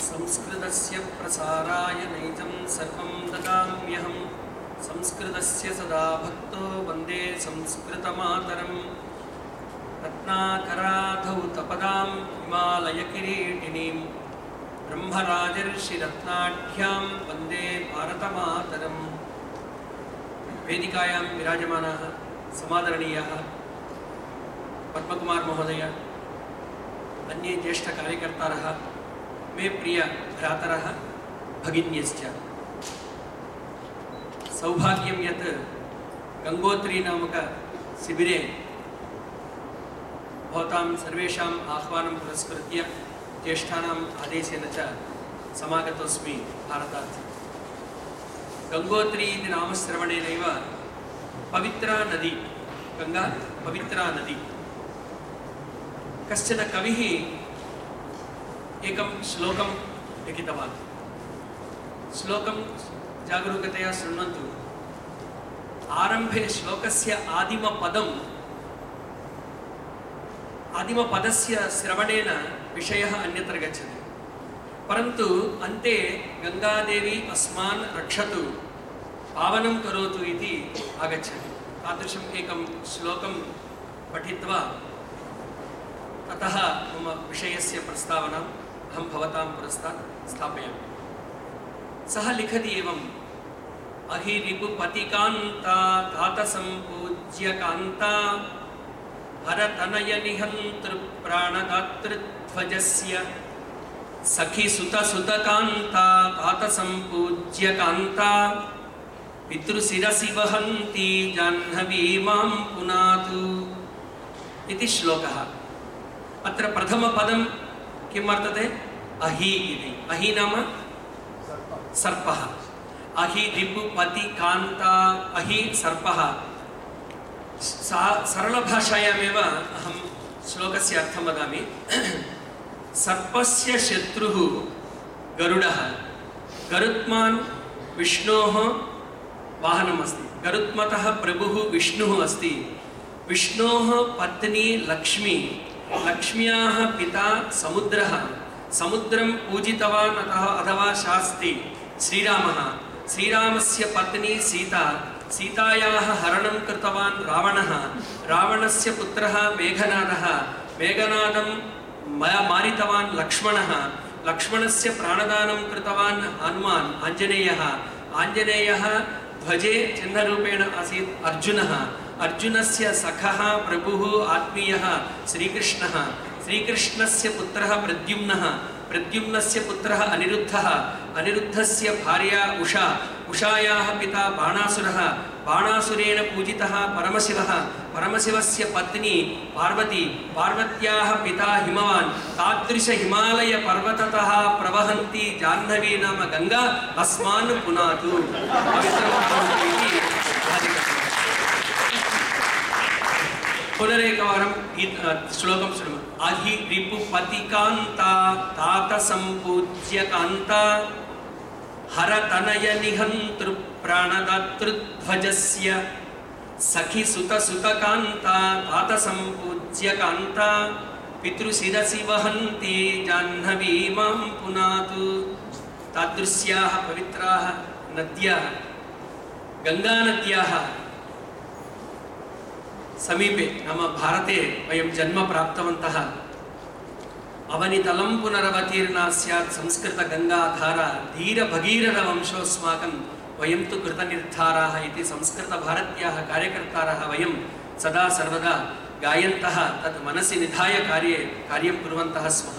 संस्कृतस्य प्रसाराय नैजं सर्वं ददाम्यहं संस्कृतस्य सदा भक्तो वन्दे संस्कृतमातरं रत्नाकराधौतपदां हिमालयकिरीटिनीं ब्रह्मराजर्षिरत्नाढ्यां वन्दे भारतमातरम्। वेदिकायां विराजमानाः समादरणीयाः पद्मकुमार महोदय, अन्ये ज्येष्ठकार्यकर्तारः, मे प्रिय भ्रातरः भगिन्यश्च, सौभाग्यं यत् गंगोत्री नामक शिबिरे भवतां सर्वेषाम् आह्वानं पुरस्कृत्य ज्येष्ठानाम् आदेशेन च समागतोऽस्मि भारतात्। गंगोत्री इति नामश्रवणेनैव पवित्रा नदी, गंगा पवित्रा नदी। कश्चन कविः एकं श्लोकं लिखितवान्। श्लोकं जागरूकतया शृण्वन्तु। आरम्भे श्लोकस्य आदिमपदस्य श्रवणेन विषयः अन्यत्र गच्छति, परन्तु अन्ते गंगादेवी अस्मान् रक्षतु, पावनं करोतु इति आगच्छति। तादृशम् एकं श्लोकं पठित्वा ततः मम विषयस्य प्रस्तावनाम् अहं भवतां पुरस्तात् स्थापयामि। सः लिखति एवम्: अहिरिपुपतिकान्ता तातसम्पूज्यकान्ता हरतनयनिहन्तृप्राणदातृध्वजस्य सखिसुतसुतकान्ता तातसम्पूज्यकान्ता पितृशिरसि वहन्ती जाह्नवी मां पुनातु इति श्लोकः। अत्र प्रथमपदं किं वर्तते? अहि इति। अहि नाम सर्पः। अहि रिपुपति कान्ता, अहि सर्पः। सरलभाषायामेव अहं श्लोकस्य अर्थं वदामि। सर्पस्य शत्रुः गरुडः, गरुत्मान् विष्णोः वाहनम् अस्ति। गरुत्मतः प्रभुः विष्णुः अस्ति। विष्णोः पत्नी लक्ष्मी, लक्ष्म्याः पिता समुद्रः, समुद्रं पूजितवान् अथवा शास्ति श्रीरामः, श्रीरामस्य पत्नी सीता, सीतायाः हरणं कृतवान् रावणः, रावणस्य पुत्रः मेघनादः, मेघनादं मारितवान् लक्ष्मणः, लक्ष्मणस्य प्राणदानं कृतवान् हनुमान् आञ्जनेयः, आञ्जनेयः ध्वजे चिह्नरूपेण आसीत् अर्जुनः, अर्जुनस्य सखः प्रभुः आत्मीयः श्रीकृष्णः, श्रीकृष्णस्य पुत्रः प्रद्युम्नः, प्रद्युम्नस्य पुत्रः अनिरुद्धः, अनिरुद्धस्य भार्या उषा, उषायाः पिता बाणासुरः, बाणासुरेण पूजितः परमशिवः, परमशिवस्य पत्नी पार्वती, पार्वत्याः पिता हिमवान्। तादृश हिमालय पर्वततः प्रवहन्ती जाह्नवी नाम गंगा अस्मान् पुनातु। पुनरेकवारं श्लोकं शृणु। अहि रिपुपतिकान्ता तातसम्पूज्यकान्ता हरतनयनिहन्तृप्राणदातृध्वजस्य सखिसुतसुतकान्ता तातसम्पूज्यकान्ता पितृशिरसि वहन्ती जाह्नवी मां पुनातु। तादृश्याः पवित्राः नद्याः, गंगानद्याः समीपे नाम भारते वयं जन्म प्राप्तवन्तः। अवनितलं पुनरवतीर्णा स्यात् संस्कृतगङ्गाधारा धीरभगीरथवंशोऽस्माकं वयं तु कृतनिर्धाराः इति संस्कृतभारत्याः कार्यकर्तारः वयं सदा सर्वदा गायन्तः तत् मनसि निधाय कार्यं कुर्वन्तः स्मः।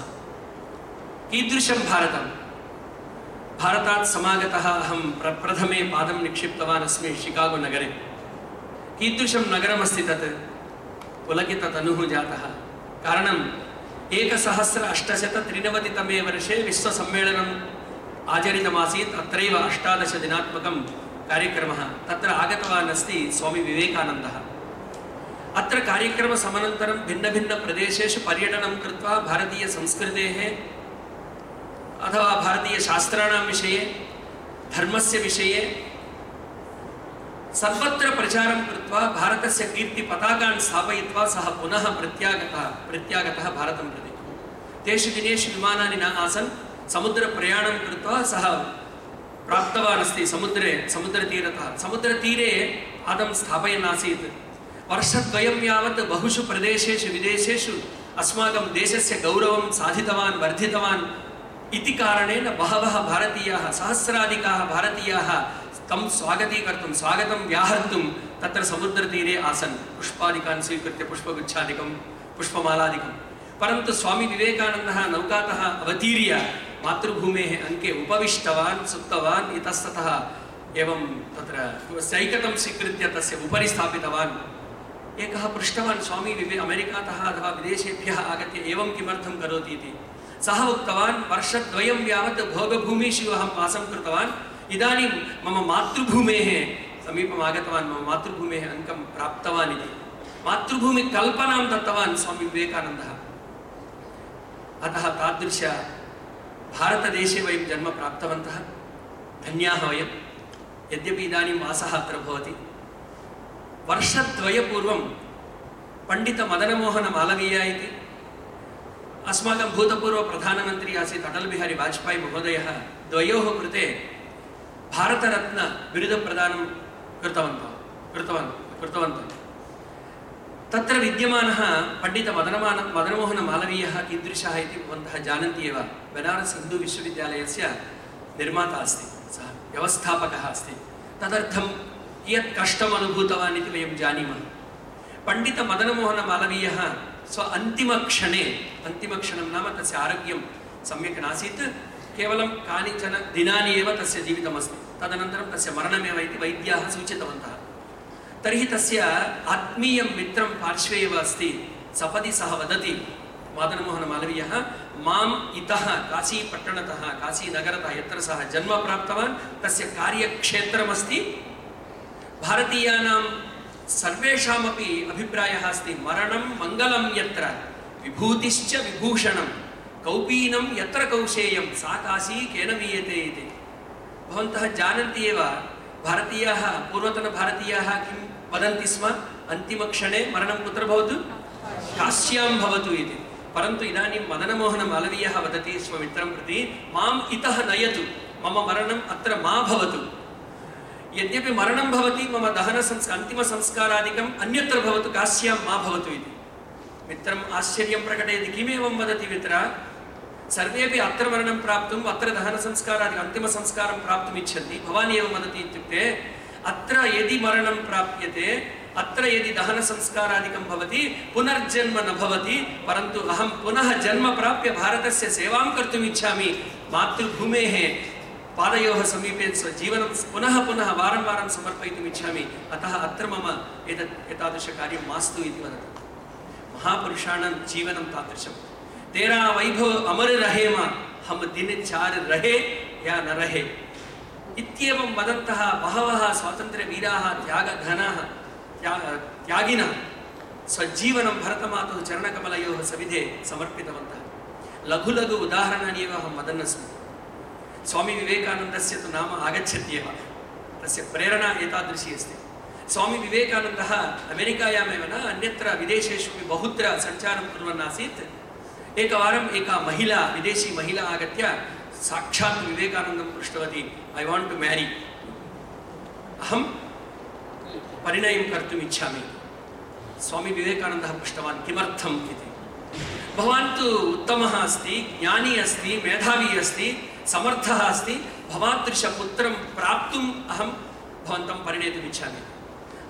कीदृशं भारतं? भारतात् समागतः अहं प्रप्रथमे पादं निक्षिप्तवान् अस्मि शिकागो नगरे। कीदृशं नगरमस्ति तत्? पुलकिततनुः जातः। कारणं 1893तमे वर्षे विश्वसम्मेलनम् आचरितमासीत्। अत्रैव 18 दिनात्मकं कार्यक्रमः। तत्र आगतवान् अस्ति स्वामी विवेकानन्दः। अत्र कार्यक्रमसमनन्तरं भिन्नभिन्नप्रदेशेषु पर्यटनं कृत्वा भारतीयसंस्कृतेः अथवा भारतीयशास्त्राणां विषये, धर्मस्य विषये सर्वत्र प्रचारं कृत्वा भारतस्य कीर्तिपताकान् स्थापयित्वा सः पुनः प्रत्यागतः भारतं प्रति। तेषु दिनेषु विमानानि न आसन्। समुद्रप्रयाणं कृत्वा सः प्राप्तवान् अस्ति समुद्रतीरतः। समुद्रतीरे पादं स्थापयन् आसीत्। वर्षद्वयं यावत् बहुषु प्रदेशेषु विदेशेषु अस्माकं देशस्य गौरवं साधितवान् वर्धितवान् इति कारणेन बहवः भारतीयाः सहस्राधिकाः भारतीयाः तं स्वागतीकर्तुं स्वागतं व्याहर्तुं तत्र समुद्रतीरे आसन् पुष्पादिकान् स्वीकृत्य पुष्पगुच्छादिकं पुष्पमालादिकं। परन्तु स्वामी विवेकानन्दः नौकातः अवतीर्य मातृभूमेः अङ्के उपविष्टवान् सुप्तवान् इतस्ततः एवं तत्र सैकतं स्वीकृत्य तस्य उपरि स्थापितवान्। एकः पृष्टवान् स्वामी अमेरिकातः अथवा विदेशेभ्यः आगत्य एवं किमर्थं करोति इति। सः उक्तवान् वर्षद्वयं यावत् भोगभूमिषु अहं वासं कृतवान्, इदानीं मम मातृभूमेः समीपम् आगतवान्, मम मातृभूमेः अङ्कं प्राप्तवान् इति मातृभूमिकल्पनां दत्तवान् स्वामी विवेकानन्दः। अतः तादृश भारतदेशे वयं जन्म प्राप्तवन्तः, धन्याः वयं। यद्यपि इदानीं वासः अत्र भवति, वर्षद्वयपूर्वं पण्डितमदनमोहनमालवीय इति अस्माकं भूतपूर्वप्रधानमन्त्री आसीत् अटल बिहारी वाजपेयी महोदयः द्वयोः कृते भारतरत्न बिरुदप्रदानं कृतवन्तः। तत्र विद्यमानः पण्डितमदनमोहनमालवीयः कीदृशः इति भवन्तः जानन्ति एव। बनारस् हिन्दू विश्वविद्यालयस्य निर्माता अस्ति, सः व्यवस्थापकः अस्ति। तदर्थं कियत् कष्टम् अनुभूतवान् इति वयं जानीमः। पण्डितमदनमोहनमालवीयः स्व अन्तिमक्षणे, अन्तिमक्षणं नाम तस्य आरोग्यं सम्यक् नासीत्, केवलं कानिचन दिनानि एव तस्य जीवितमस्ति, तदनन्तरं तस्य मरणमेव इति वैद्याः सूचितवन्तः। तर्हि तस्य आत्मीयं मित्रं पार्श्वे एव अस्ति। सपदि सः वदति, मदनमोहनमालवीयः, माम् इतः काशीपट्टणतः काशीनगरतः यत्र सः जन्म प्राप्तवान् तस्य कार्यक्षेत्रमस्ति, भारतीयानां सर्वेषामपि अभिप्रायः अस्ति, मरणं मङ्गलं यत्र विभूतिश्च विभूषणं कौपीनं यत्र कौशेयं सा काशी केन वीयते इति। भवन्तः जानन्ति एव, भारतीयाः पूर्वतनभारतीयाः किं वदन्ति स्म, अन्तिमक्षणे मरणं कुत्र भवतु, काश्यां भवतु इति। परन्तु इदानीं मदनमोहनमालवीयः वदति स्वमित्रं प्रति, माम् इतः नयतु, मम मरणम् अत्र मा भवतु। यद्यपि मरणं भवति, मम अन्तिमसंस्कारादिकम् अन्यत्र भवतु, काश्यां मा भवतु इति। मित्रम् आश्चर्यं प्रकटयति, किमेवं वदति मित्र, सर्वेपि अत्र मरणं प्राप्तुम् अत्र दहनसंस्कारादिकम् अन्तिमसंस्कारं प्राप्तुम् इच्छन्ति, भवान् एवं वदति इत्युक्ते अत्र यदि मरणं प्राप्यते, अत्र यदि दहनसंस्कारादिकं भवति, पुनर्जन्म न भवति, परन्तु अहं पुनः जन्म प्राप्य भारतस्य सेवां कर्तुम् इच्छामि, मातृभूमेः पादयोः समीपे स्वजीवनं पुनः पुनः वारं वारं समर्पयितुम् इच्छामि, अतः अत्र मम एतादृशकार्यं मास्तु इति वदति। महापुरुषाणां जीवनं तादृशं। तेरा वैभव अमर रहे मा, हम दिन चार रहे या न रहे इत्येवं वदन्तः बहवः स्वातन्त्र्यवीराः त्यागिनः स्वजीवनं भरतमातुः चरणकमलयोः सविधे समर्पितवन्तः। लघु लघु उदाहरणानि एव अहं वदन् अस्मि। स्वामी विवेकानन्दस्य तु नाम आगच्छत्येव, तस्य प्रेरणा एतादृशी अस्ति। स्वामी विवेकानन्दः अमेरिकायामेव न अन्यत्र विदेशेषु बहुत्र सञ्चारं कुर्वन् आसीत्। एकवारम् एका महिला, विदेशी महिला आगत्य साक्षात् विवेकानन्दं पृष्टवती, ऐ वाण्ट् टु म्यारी, अहं परिणयं कर्तुम् इच्छामि। स्वामी विवेकानन्दः पृष्टवान्, किमर्थम् इति। भवान् तु उत्तमः अस्ति, ज्ञानी अस्ति, मेधावी अस्ति, समर्थः अस्ति, भवादृशपुत्रं प्राप्तुम् अहं भवन्तं परिणेतुम् इच्छामि।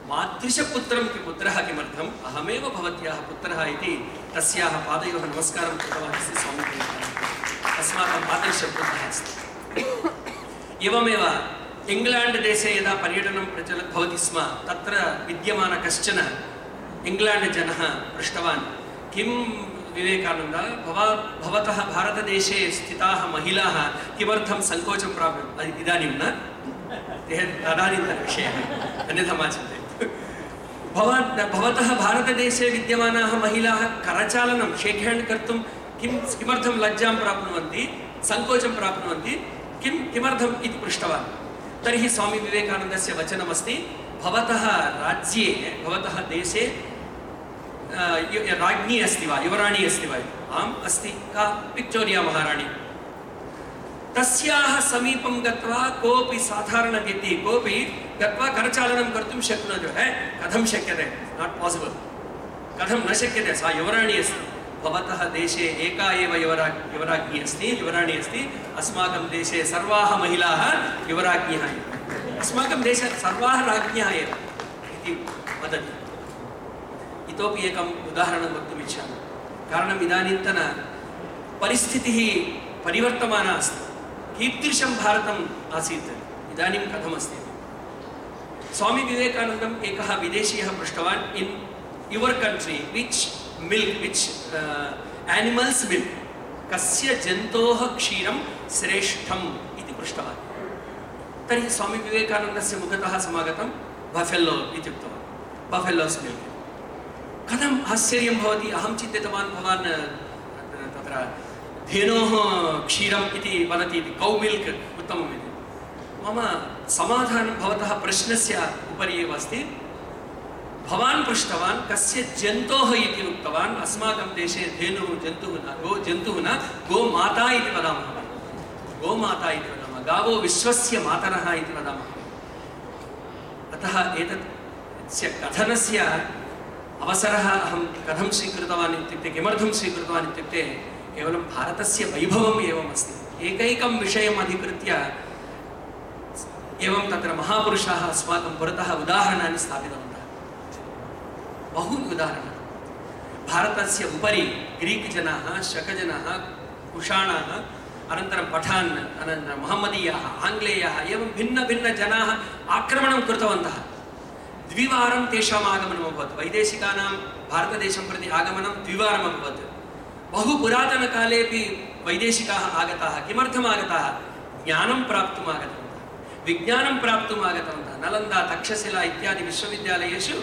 मादृशपुत्रं पुत्रः किमर्थम्, अहमेव भवत्याः पुत्रः इति तस्याः पादयोः नमस्कारं कृतवान् अस्ति स्वामी विवेकानन्दः। अस्माकं आदर्शपुत्रः अस्ति। एवमेव इंग्लैंड देशे यदा पर्यटनं भवति स्म, तत्र विद्यमान कश्चन इंग्लैंड जनः पृष्टवान्, किं विवेकानन्द, भवतः भारतदेशे स्थिताः महिलाः किमर्थं सङ्कोचं प्राप्नुवन्ति? इदानीं न, तदानीन्तनविषयः, अन्यथा मा चिन्तयतु। भवतः भारतदेशे विद्यमानाः महिलाः करचालनं शेक् हेण्ड् कर्तुं किमर्थं लज्जां प्राप्नुवन्ति, सङ्कोचं प्राप्नुवन्ति, किमर्थम् इति पृष्टवान्। तर्हि स्वामी विवेकानन्दस्य वचनमस्ति, भवतः राज्ये, भवतः देशे राज्ञी अस्ति वा, युवराणी अस्ति वा? आम् अस्ति। का? विक्टोरिया महाराणी। तस्याः समीपं गत्वा कोऽपि साधारणव्यक्तिः कोऽपि गत्वा करचालनं कर्तुं शक्नोति कथं शक्यते नाट् पासिबल् कथं न शक्यते सा युवराणी अस्ति भवतः देशे एका एव युवराज्ञी अस्ति युवराणी अस्ति अस्माकं देशे सर्वाः महिलाः युवराज्ञ्यः एव अस्माकं देशे सर्वाः राज्ञ्यः एव इति वदति इतोपि एकम् उदाहरणं वक्तुम् इच्छामि कारणम् इदानीन्तन परिस्थितिः परिवर्तमाना अस्ति कीदृशं भारतम् आसीत् इदानीं कथमस्ति स्वामी विवेकानन्दम् एकः विदेशीयः पृष्टवान् in your country which milk which animals milk कस्य जन्तोः क्षीरं श्रेष्ठम् इति पृष्टवान् तर्हि स्वामी विवेकानन्दस्य मुखतः समागतं बफेलो इति उक्तवान् बफेलोस् मिल्क् कथम् आश्चर्यं भवति अहं चिन्तितवान् भवान् तत्र धेनोः क्षीरम् इति वदति इति कौ मिल्क् उत्तमम् इति मम समाधानं भवतः प्रश्नस्य उपरि एव अस्ति भवान् पृष्टवान् कस्य जन्तोः इति उक्तवान् अस्माकं देशे धेनुः जन्तुः न जन्तुः न गोमाता इति वदामः गोमाता इति वदामः गावो विश्वस्य मातरः इति वदामः अतः एतस्य कथनस्य अवसरः अहं कथं स्वीकृतवान् इत्युक्ते किमर्थं स्वीकृतवान् इत्युक्ते केवलं भारतस्य वैभवम् एवम् अस्ति एकैकं विषयम् अधिकृत्य एवं तत्र महापुरुषाः अस्माकं पुरतः उदाहरणानि स्थापितवन्तः बहूनि उदाहरणानि भारतस्य उपरि ग्रीक् जनाः शकजनाः कुषाणाः अनन्तरं पठान् अनन्तरं महम्मदीयाः आङ्ग्लेयाः एवं भिन्नभिन्नजनाः आक्रमणं कृतवन्तः द्विवारं तेषाम् आगमनम् अभवत् वैदेशिकानां भारतदेशं प्रति आगमनं द्विवारम् अभवत् बहु पुरातनकालेपि वैदेशिकाः आगताः किमर्थम् आगताः ज्ञानं प्राप्तुम् आगतवन्तः विज्ञानं प्राप्तुम् आगतवन्तः नलन्दा तक्षशिला इत्यादि विश्वविद्यालयेषु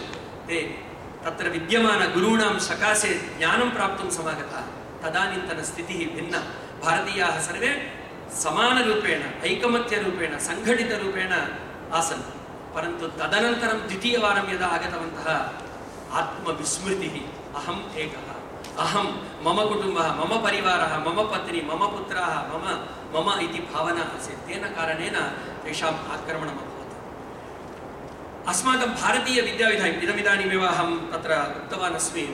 ते तत्र विद्यमानगुरूणां सकाशे ज्ञानं प्राप्तुं समागताः तदानीन्तनस्थितिः भिन्ना भारतीयाः सर्वे समानरूपेण ऐकमत्यरूपेण सङ्घटितरूपेण आसन् परन्तु तदनन्तरं द्वितीयवारं यदा आगतवन्तः आत्मविस्मृतिः अहम् एकः अहं मम कुटुम्बः मम परिवारः मम पत्नी मम पुत्राः मम इति भावना आसीत् तेन कारणेन तेषाम् आक्रमणम् अभवत् अस्माकं भारतीयविद्याविधानम् इदमिदानीमेव अहं तत्र उक्तवान् अस्मि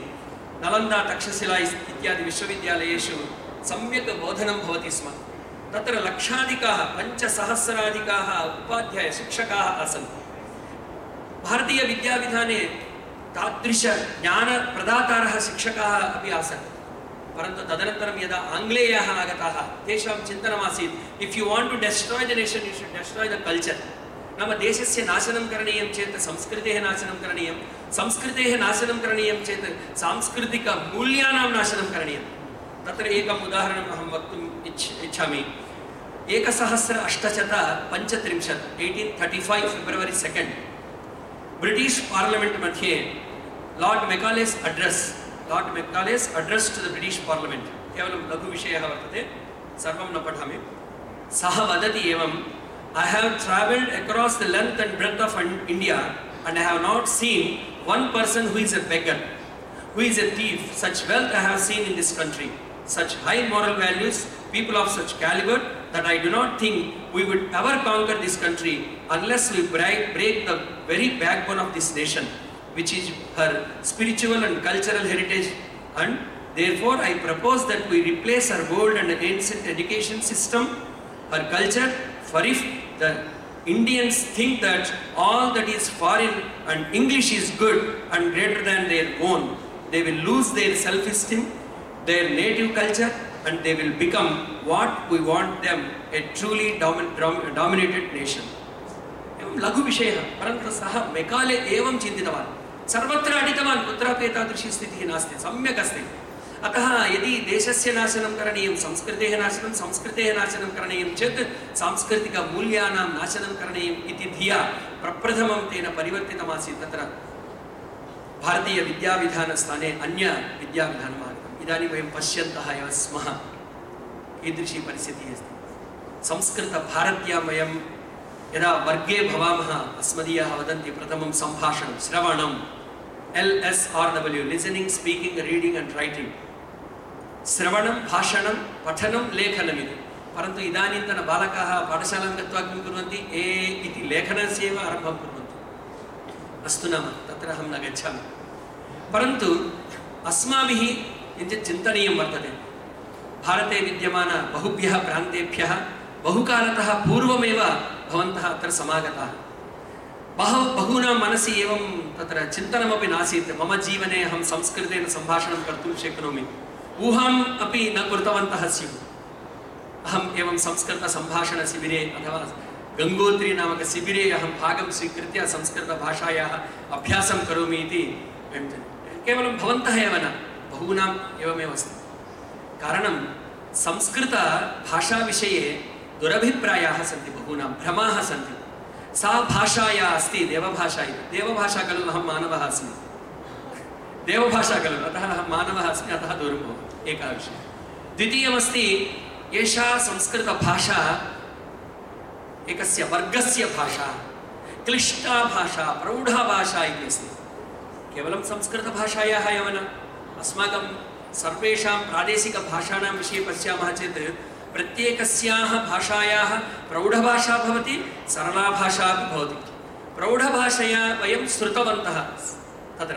नलन्दा तक्षशिला इत्यादि विश्वविद्यालयेषु सम्यक् बोधनं भवति स्म तत्र लक्षाधिकाः 5,000-अधिकाः उपाध्याय शिक्षकाः आसन् भारतीयविद्याविधाने तादृश ज्ञानप्रदातारः शिक्षकाः अपि आसन् परन्तु तदनन्तरं यदा आङ्ग्लेयाः आगताः तेषां चिन्तनमासीत् if you want to destroy the nation you should destroy the culture नाम देशस्य नाशनं करणीयं चेत् संस्कृतेः नाशनं करणीयं संस्कृतेः नाशनं करणीयं चेत् सांस्कृतिकमूल्यानां नाशनं करणीयं तत्र एकम् उदाहरणम् अहं वक्तुम् इच्छामि 1835 फेब्रुवरी 2 ब्रिटिश् पार्लिमेण्ट् मध्ये Lord Macaulay's address to the British Parliament केवलं लघुविषयः वर्तते सर्वं न पठामि सः वदति एवं I have travelled across the length and breadth of India and I have not seen one person who is a beggar, who is a thief. Such wealth I have seen in this country, such high moral values, people of such caliber that I do not think we would ever conquer this country unless we break the very backbone of this nation, which is her spiritual and cultural heritage, and therefore I propose that we replace her old and ancient education system, her culture, for if the Indians think that all that is foreign and English is good and greater than their own, they will lose their self-esteem, their native culture, and they will become what we want them, a truly dominated nation. एवं लघुविषयः परन्तु सः Macaulay एवं चिन्तितवान् सर्वत्र अटितवान् कुत्रापि एतादृशी स्थितिः नास्ति सम्यक् अस्ति अतः यदि देशस्य नाशनं करणीयं संस्कृतेः नाशनं करणीयं चेत् सांस्कृतिकमूल्यानां नाशनं करणीयम् इति धिया प्रप्रथमं तेन परिवर्तितमासीत् तत्र भारतीयविद्याविधानस्थाने अन्यविद्याविधानम् आगतम् इदानीं वयं पश्यन्तः एव स्मः कीदृशी परिस्थितिः अस्ति संस्कृतभारत्यां वयं यदा वर्गे भवामः अस्मदीयाः वदन्ति प्रथमं सम्भाषणं श्रवणं LSRW listening speaking reading and writing श्रवणं भाषणं पठनं लेखनम् इति परन्तु इदानीन्तन बालकाः पाठशालां गत्वा किं कुर्वन्ति ए इति लेखनस्य एव आरम्भं कुर्वन्ति। अस्तु नाम तत्र अहं न गच्छामि, परन्तु अस्माभिः किञ्चित् चिन्तनीयं वर्तते। भारते विद्यमान बहुभ्यः प्रान्तेभ्यः बहुकालतः पूर्वमेव भवन्तः अत्र समागताः। बहूनां मनसि एवं तत्र चिन्तनमपि नासीत्, मम जीवने अहं संस्कृतेन सम्भाषणं कर्तुं शक्नोमि, ऊहाम् अपि न कृतवन्तः स्युः। अहम् एवं संस्कृतसम्भाषणशिबिरे अथवा गङ्गोत्री नामक शिबिरे अहं भागं स्वीकृत्य संस्कृतभाषायाः अभ्यासं करोमि इति केवलं भवन्तः एव न, बहूनाम् एवमेव अस्ति। कारणं संस्कृतभाषाविषये दुरभिप्रायाः सन्ति, बहूनां भ्रमाः सन्ति। सा भाषा या अस्ति देवभाषा इति, देवभाषा खलु अहं मानवः अस्मि, देवभाषा खलु अतः अहं मानवः अस्मि, अतः दूरं भवामि, एकः विषयः। द्वितीयमस्ति, एषा संस्कृतभाषा एकस्य वर्गस्य भाषा, क्लिष्टा भाषा, प्रौढा भाषा इति अस्ति। केवलं संस्कृतभाषायाः एव न, अस्माकं सर्वेषां प्रादेशिकभाषाणां विषये पश्यामः चेत् प्रत्येकस्याः भाषायाः प्रौढभाषा भवति, सरला भाषा अपि भवति। प्रौढभाषया वयं श्रुतवन्तः तत्र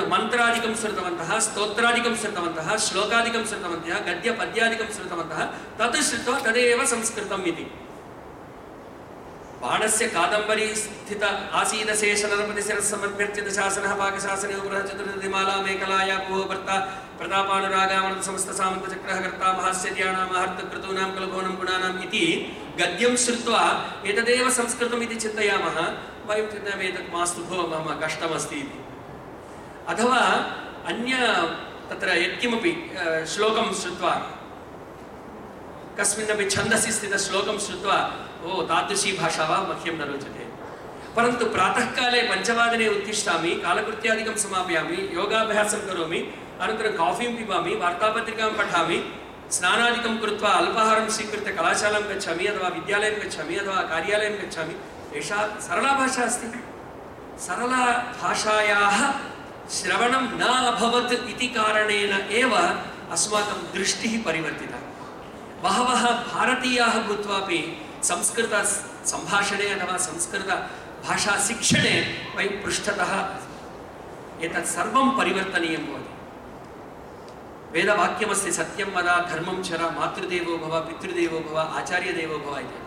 मन्त्रादिकं श्रुतवन्तः, स्तोत्रादिकं श्रुतवन्तः, श्लोकादिकं श्रुतवन्तः, गद्यपद्यादिकं श्रुतवन्तः, तत् श्रुत्वा तदेव संस्कृतम् इति। बाणस्य कादम्बरी स्थित आसीदशेषनरपतिशिरस्समर्प्यर्चित शासनः पाकशासने उपरः चतुर्दिमाला मेखलाया भुवो भर्ता प्रतापानुरागामनत समस्त सामन्तचक्रः कर्ता महास्यद्यानामहर्तकृतूनां कलभवनं गुणानाम् इति गद्यं श्रुत्वा एतदेव संस्कृतम् इति चिन्तयामः। वयं चिन्तयामः एतत् मास्तु भो, मम कष्टमस्ति इति। अथवा अन्य तत्र यत्किमपि श्लोकं श्रुत्वा, कस्मिन्नपि छन्दसि स्थितश्लोकं श्रुत्वा ओ तादृशी भाषा वा मह्यं न रोचते। परन्तु प्रातःकाले 5 वादने उत्तिष्ठामि, कालकृत्यादिकं समापयामि, योगाभ्यासं करोमि, अनन्तरं काफीं पिबामि, वार्तापत्रिकां पठामि, स्नानादिकं कृत्वा अल्पाहारं स्वीकृत्य कलाशालां गच्छामि अथवा विद्यालयं गच्छामि अथवा कार्यालयं गच्छामि। एषा सरला भाषा अस्ति। सरला भाषायाः श्रवणं न अभवत् इति कारणेन एव अस्माकं दृष्टिः परिवर्तिता। बहवः भारतीयाः भूत्वापि संस्कृतसम्भाषणे अथवा संस्कृतभाषाशिक्षणे वयं पृष्ठतः एतत् सर्वं परिवर्तनीयं भवति। वेदवाक्यमस्ति, सत्यं वद, धर्मं चर, मातृदेवो भव, पितृदेवो भव, आचार्यदेवो भव इति।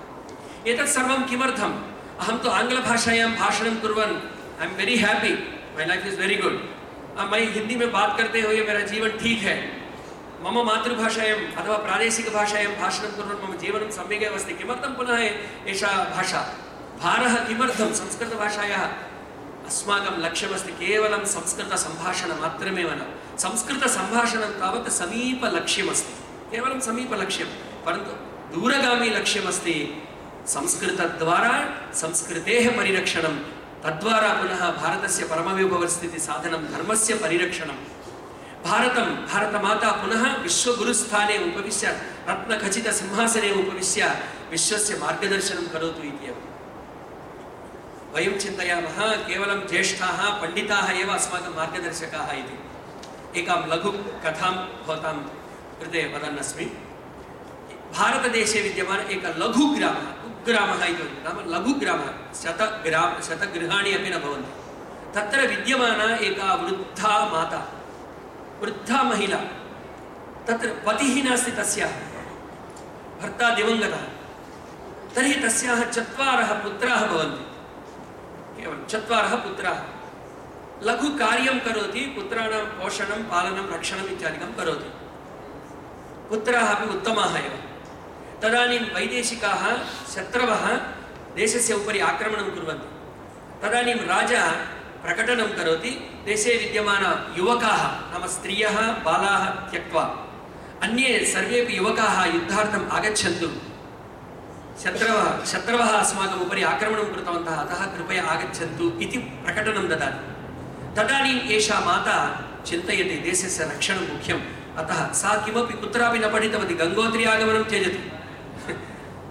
एतत् सर्वं किमर्थम्? अहं तु आङ्ग्लभाषायां भाषणं कुर्वन् I am very happy, my life is very good, मैं हिंदी में बात करते हुए मेरा जीवन ठीक है, मम मातृभाषायां अथवा प्रादेशिकभाषायां भाषणं कुर्वन् मम जीवनं सम्यक् एव अस्ति। किमर्थं पुनः एषा भाषा भारः किमर्थं? संस्कृतभाषायाः अस्माकं लक्ष्यमस्ति केवलं संस्कृतसम्भाषणमात्रमेव न, संस्कृतसम्भाषणं तावत् समीपलक्ष्यमस्ति, केवलं समीपलक्ष्यं, परन्तु दूरगामी लक्ष्यमस्ति संस्कृतद्वारा संस्कृतेः परिरक्षणं, तद्वारा पुनः भारतस्य परमविभवस्थितिसाधनं, धर्मस्य परिरक्षणं। भारतमाता पुनः विश्वगुरुस्थाने उपविश्य रत्नखचितसिंहासने उपविश्य विश्वस्य मार्गदर्शनं करोतु इति एव वयं चिन्तयामः। केवलं ज्येष्ठाः पण्डिताः एव अस्माकं मार्गदर्शकाः इति। एकां लघुकथां भवतां कृते वदन्नस्मि। भारतदेशे विद्यमान एकः लघुग्रामः, कुग्रामः इति नाम लघुग्रामः, शतगृहाणि अपि न भवन्ति। तत्र विद्यमाना एका वृद्धा माता, वृद्धा महिला, तत्र पतिः नास्ति, तस्याः भर्ता दिवङ्गतः। तर्हि तस्याः 4 पुत्राः भवन्ति, केवलं 4 पुत्राः। लघु कार्यं करोति, पुत्राणां पोषणं, पालनं, रक्षणम् इत्यादिकं करोति। पुत्राः अपि उत्तमाः एव। तदानीं वैदेशिकाः शत्रवः देशस्य उपरि आक्रमणं कुर्वन्ति। तदानीं राजा प्रकटनं करोति, देशे विद्यमान युवकाः नाम स्त्रियः बालाः त्यक्त्वा अन्ये सर्वेपि युवकाः युद्धार्थम् आगच्छन्तु, शत्रवः अस्माकम् उपरि आक्रमणं कृतवन्तः, अतः कृपया आगच्छन्तु इति प्रकटनं ददाति। तदानीम् एषा माता चिन्तयति देशस्य रक्षणं मुख्यम्, अतः सा किमपि कुत्रापि न पठितवती, गङ्गोत्री आगमनं त्यजतु,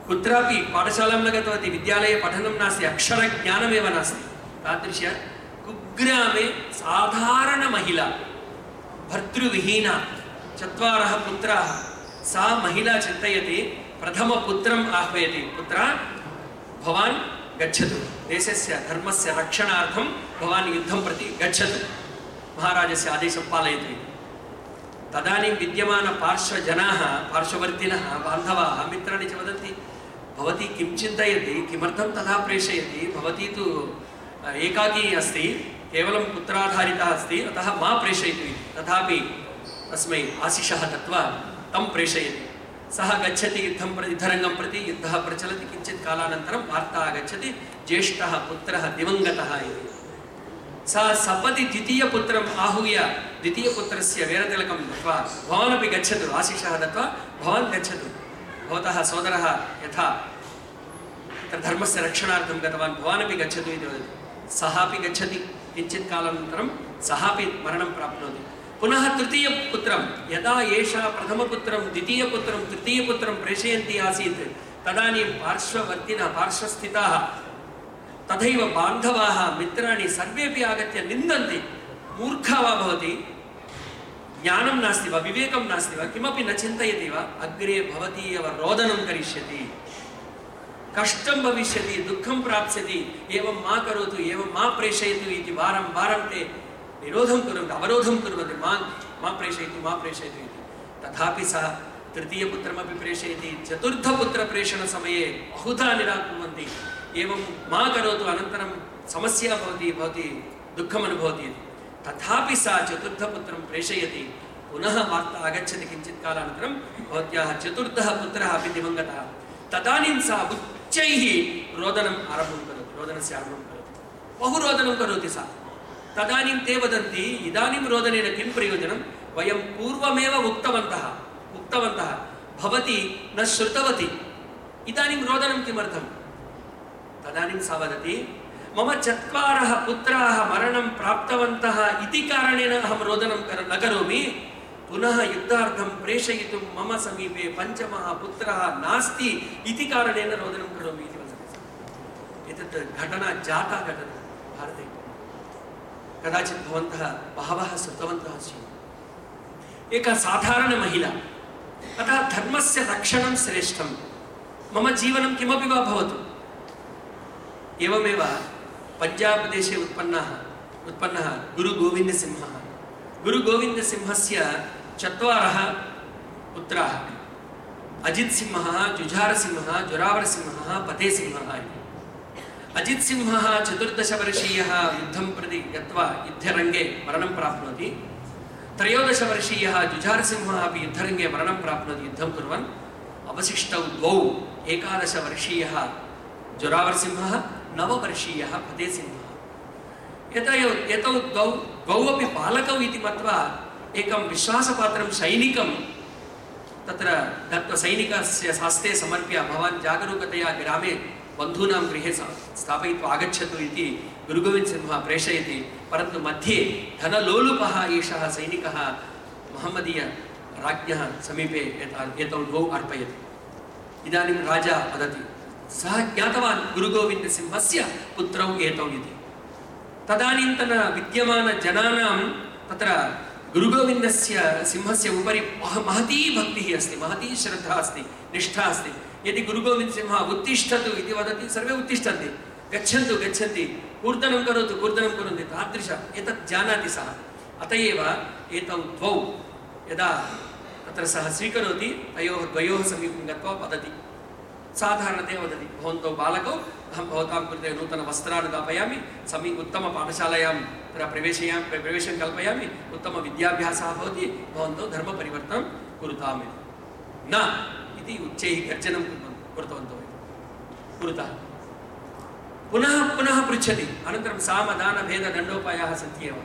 कुत्रापि पाठशालां न गतवती, विद्यालये पठनं नास्ति, अक्षरज्ञानमेव नास्ति। तादृश कुग्रामे साधारण महिला, भर्तृविहीना, 4 पुत्राः, सा महिला चिन्तयति, प्रथमपुत्रम् आह्वयति, पुत्रा भवान् गच्छतु, देशस्य धर्मस्य रक्षणार्थं भवान् युद्धं प्रति गच्छतु, महाराजस्य आदेशं पालयतु। तदानीं विद्यमानपार्श्वजनाः, पार्श्ववर्तिनः, बान्धवाः, मित्राणि च वदन्ति, भवती किं चिन्तयति, किमर्थं तथा प्रेषयति, भवती तु एकाकी अस्ति, केवलं पुत्राधारिता अस्ति, अतः मा प्रेषयतु इति। तथापि तस्मै आशिषः दत्त्वा तं प्रेषयति। सः गच्छति युद्धरङ्गं प्रति, युद्धः प्रचलति। किञ्चित् कालानन्तरं वार्ता आगच्छति, ज्येष्ठः पुत्रः दिवङ्गतः इति। सा सपदि द्वितीयपुत्रम् आहूय द्वितीयपुत्रस्य वेरतिलकं दत्त्वा, भवानपि गच्छतु, आशिषः दत्त्वा भवान् गच्छतु, भवतः सोदरः यथा धर्मस्य रक्षणार्थं गतवान्, भवानपि गच्छतु इति वदति। सः अपि गच्छति। किञ्चित् कालानन्तरं सः अपि मरणं प्राप्नोति। पुनः तृतीयपुत्रं, यदा एषा प्रथमपुत्रं द्वितीयपुत्रं तृतीयपुत्रं प्रेषयन्ती आसीत्, तदानीं पार्श्ववर्तिनः, पार्श्वस्थिताः, तथैव बान्धवाः, मित्राणि सर्वेपि आगत्य निन्दन्ति। मूर्खा वा भवति, ज्ञानं नास्ति वा, विवेकं नास्ति वा, किमपि न चिन्तयति वा, अग्रे भवती एव रोदनं करिष्यति, कष्टं भविष्यति, दुःखं प्राप्स्यति, एवं मा करोतु, एवं मा प्रेषयतु इति वारं वारं ते विरोधं कुर्वन्ति, अवरोधं कुर्वन्ति, मा प्रेषयतु, मा प्रेषयतु इति। तथापि सः तृतीयपुत्रमपि प्रेषयति। चतुर्थपुत्रप्रेषणसमये बहुधा निराकुर्वन्ति, एवं मा करोतु, अनन्तरं समस्या भवति, भवती दुःखम् अनुभवति इति। तथापि सा चतुर्थपुत्रं प्रेषयति। पुनः वार्ता आगच्छति किञ्चित् कालानन्तरं, भवत्याः चतुर्थः पुत्रः अपि दिवङ्गतः। तदानीं सा उच्चैः रोदनम् आरम्भं करोति, रोदनस्य आरम्भं करोति, बहु रोदनं करोति सा। तदानीं ते वदन्ति, इदानीं रोदनेन किं प्रयोजनं, वयं पूर्वमेव उक्तवन्तः, भवती न श्रुतवती, इदानीं रोदनं किमर्थं? तदानीं सा वदति, मम 4 पुत्राः मरणं प्राप्तवन्तः इति कारणेन अहं रोदनं न करोमि, पुनः युद्धार्थं प्रेषयितुं मम समीपे 5मः पुत्रः नास्ति इति कारणेन रोदनं करोमि इति वदति। एतत् घटना जाता घटना भारते। कदाचित् भवन्तः बहवः श्रुतवन्तः स्युः। एका साधारणमहिला, अतः धर्मस्य रक्षणं श्रेष्ठं, मम जीवनं किमपि वा भवतु। एवमेव पञ्जाब् देशे उत्पन्नः गुरुगोविन्दसिंहः। गुरुगोविन्दसिंहस्य 4 पुत्राः, अजितसिंहः, जुझारसिंहः, जोरावरसिंहः, फतेसिंहः इति। अजितसिंहः 14 वर्षीयः युद्धं प्रति गत्वा युद्धरङ्गे मरणं प्राप्नोति। 13 वर्षीयः जुझारसिंहः अपि युद्धरङ्गे मरणं प्राप्नोति युद्धं कुर्वन्। अवशिष्टौ 2, 11 वर्षीयः जोरावरसिंहः, 9 वर्षीयः फतेसिंहः। एतौ द्वौ अपि बालकौ इति मत्वा एकं विश्वासपात्रं सैनिकं तत्र दत्त्वा सैनिकस्य हस्ते समर्प्य, भवान् जागरूकतया ग्रामे बन्धूनां गृहे स्थापयित्वा आगच्छतु इति गुरुगोविन्दसिंहः प्रेषयति। परन्तु मध्ये धनलोलुपः एषः सैनिकः महम्मदीयराज्ञः समीपे एतौ 2 अर्पयति। इदानीं राजा वदति, सः ज्ञातवान् गुरुगोविन्दसिंहस्य पुत्रौ एतौ इति। तदानीन्तन विद्यमानजनानां तत्र गुरुगोविन्दसिंहस्य उपरि महती भक्तिः अस्ति, महती श्रद्धा अस्ति, निष्ठा अस्ति। यदि गुरुगोविन्दसिंहः उत्तिष्ठतु इति वदति, सर्वे उत्तिष्ठन्ति, गच्छन्तु गच्छन्ति, कूर्दनं करोतु कूर्दनं कुर्वन्ति, तादृश एतत् जानाति सः। अत एव एतौ 2 यदा तत्र सः स्वीकरोति, द्वयोः समीपं गत्वा वदति, साधारणतया वदति, भवन्तौ बालकौ, अहं भवतां कृते नूतनवस्त्रान् दापयामि, उत्तमपाठशालायां प्रवेशं कल्पयामि, उत्तमविद्याभ्यासः भवति, भवन्तौ धर्मपरिवर्तनं कुरुताम् न इति उच्चैः गर्जनं कृतवन्तौ कुरुतः। पुनः पुनः पृच्छति, अनन्तरं सामदानभेददण्डोपायाः सन्ति एव।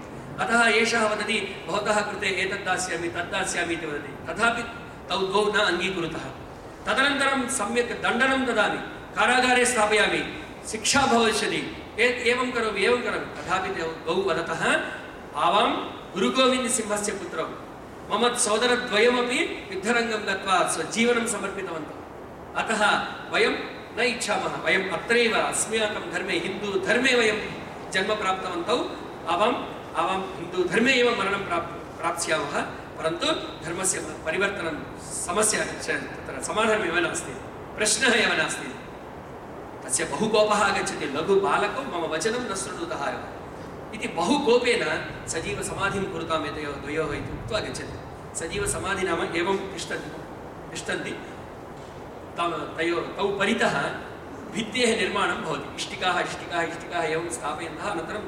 अतः एषः वदति, भवतः कृते एतद् दास्यामि तद् दास्यामि इति वदति। तथापि तौ 2 न अङ्गीकुरुतः। तदनन्तरं सम्यक् दण्डनं ददामि, कारागारे स्थापयामि, शिक्षा भविष्यति, एवं करोमि एवं करोमि। तथापि 2 वदतः, आवां गुरुगोविन्दसिंहस्य पुत्रौ, मम सोदरद्वयमपि युद्धरङ्गं गत्वा स्वजीवनं समर्पितवन्तौ, अतः वयं न इच्छामः, वयम् अत्रैव अस्माकं धर्मे हिन्दूधर्मे वयं जन्म प्राप्तवन्तौ, आवां हिन्दूधर्मे एव मरणं प्राप्स्यामः, परन्तु धर्मस्य परिवर्तनं समस्या तत्र समाधानमेव नास्ति, प्रश्नः एव नास्ति। तस्य बहु कोपः आगच्छति, लघुबालको मम वचनं न शृणुतः एव इति बहु कोपेन सजीवसमाधिं कुरुताम् एतयोः द्वयोः इति उक्त्वा गच्छति। सजीवसमाधि नाम एवं तिष्ठन्ति, तौ परितः भित्तेः निर्माणं भवति। इष्टिकाः एवं स्थापयन्तः अनन्तरं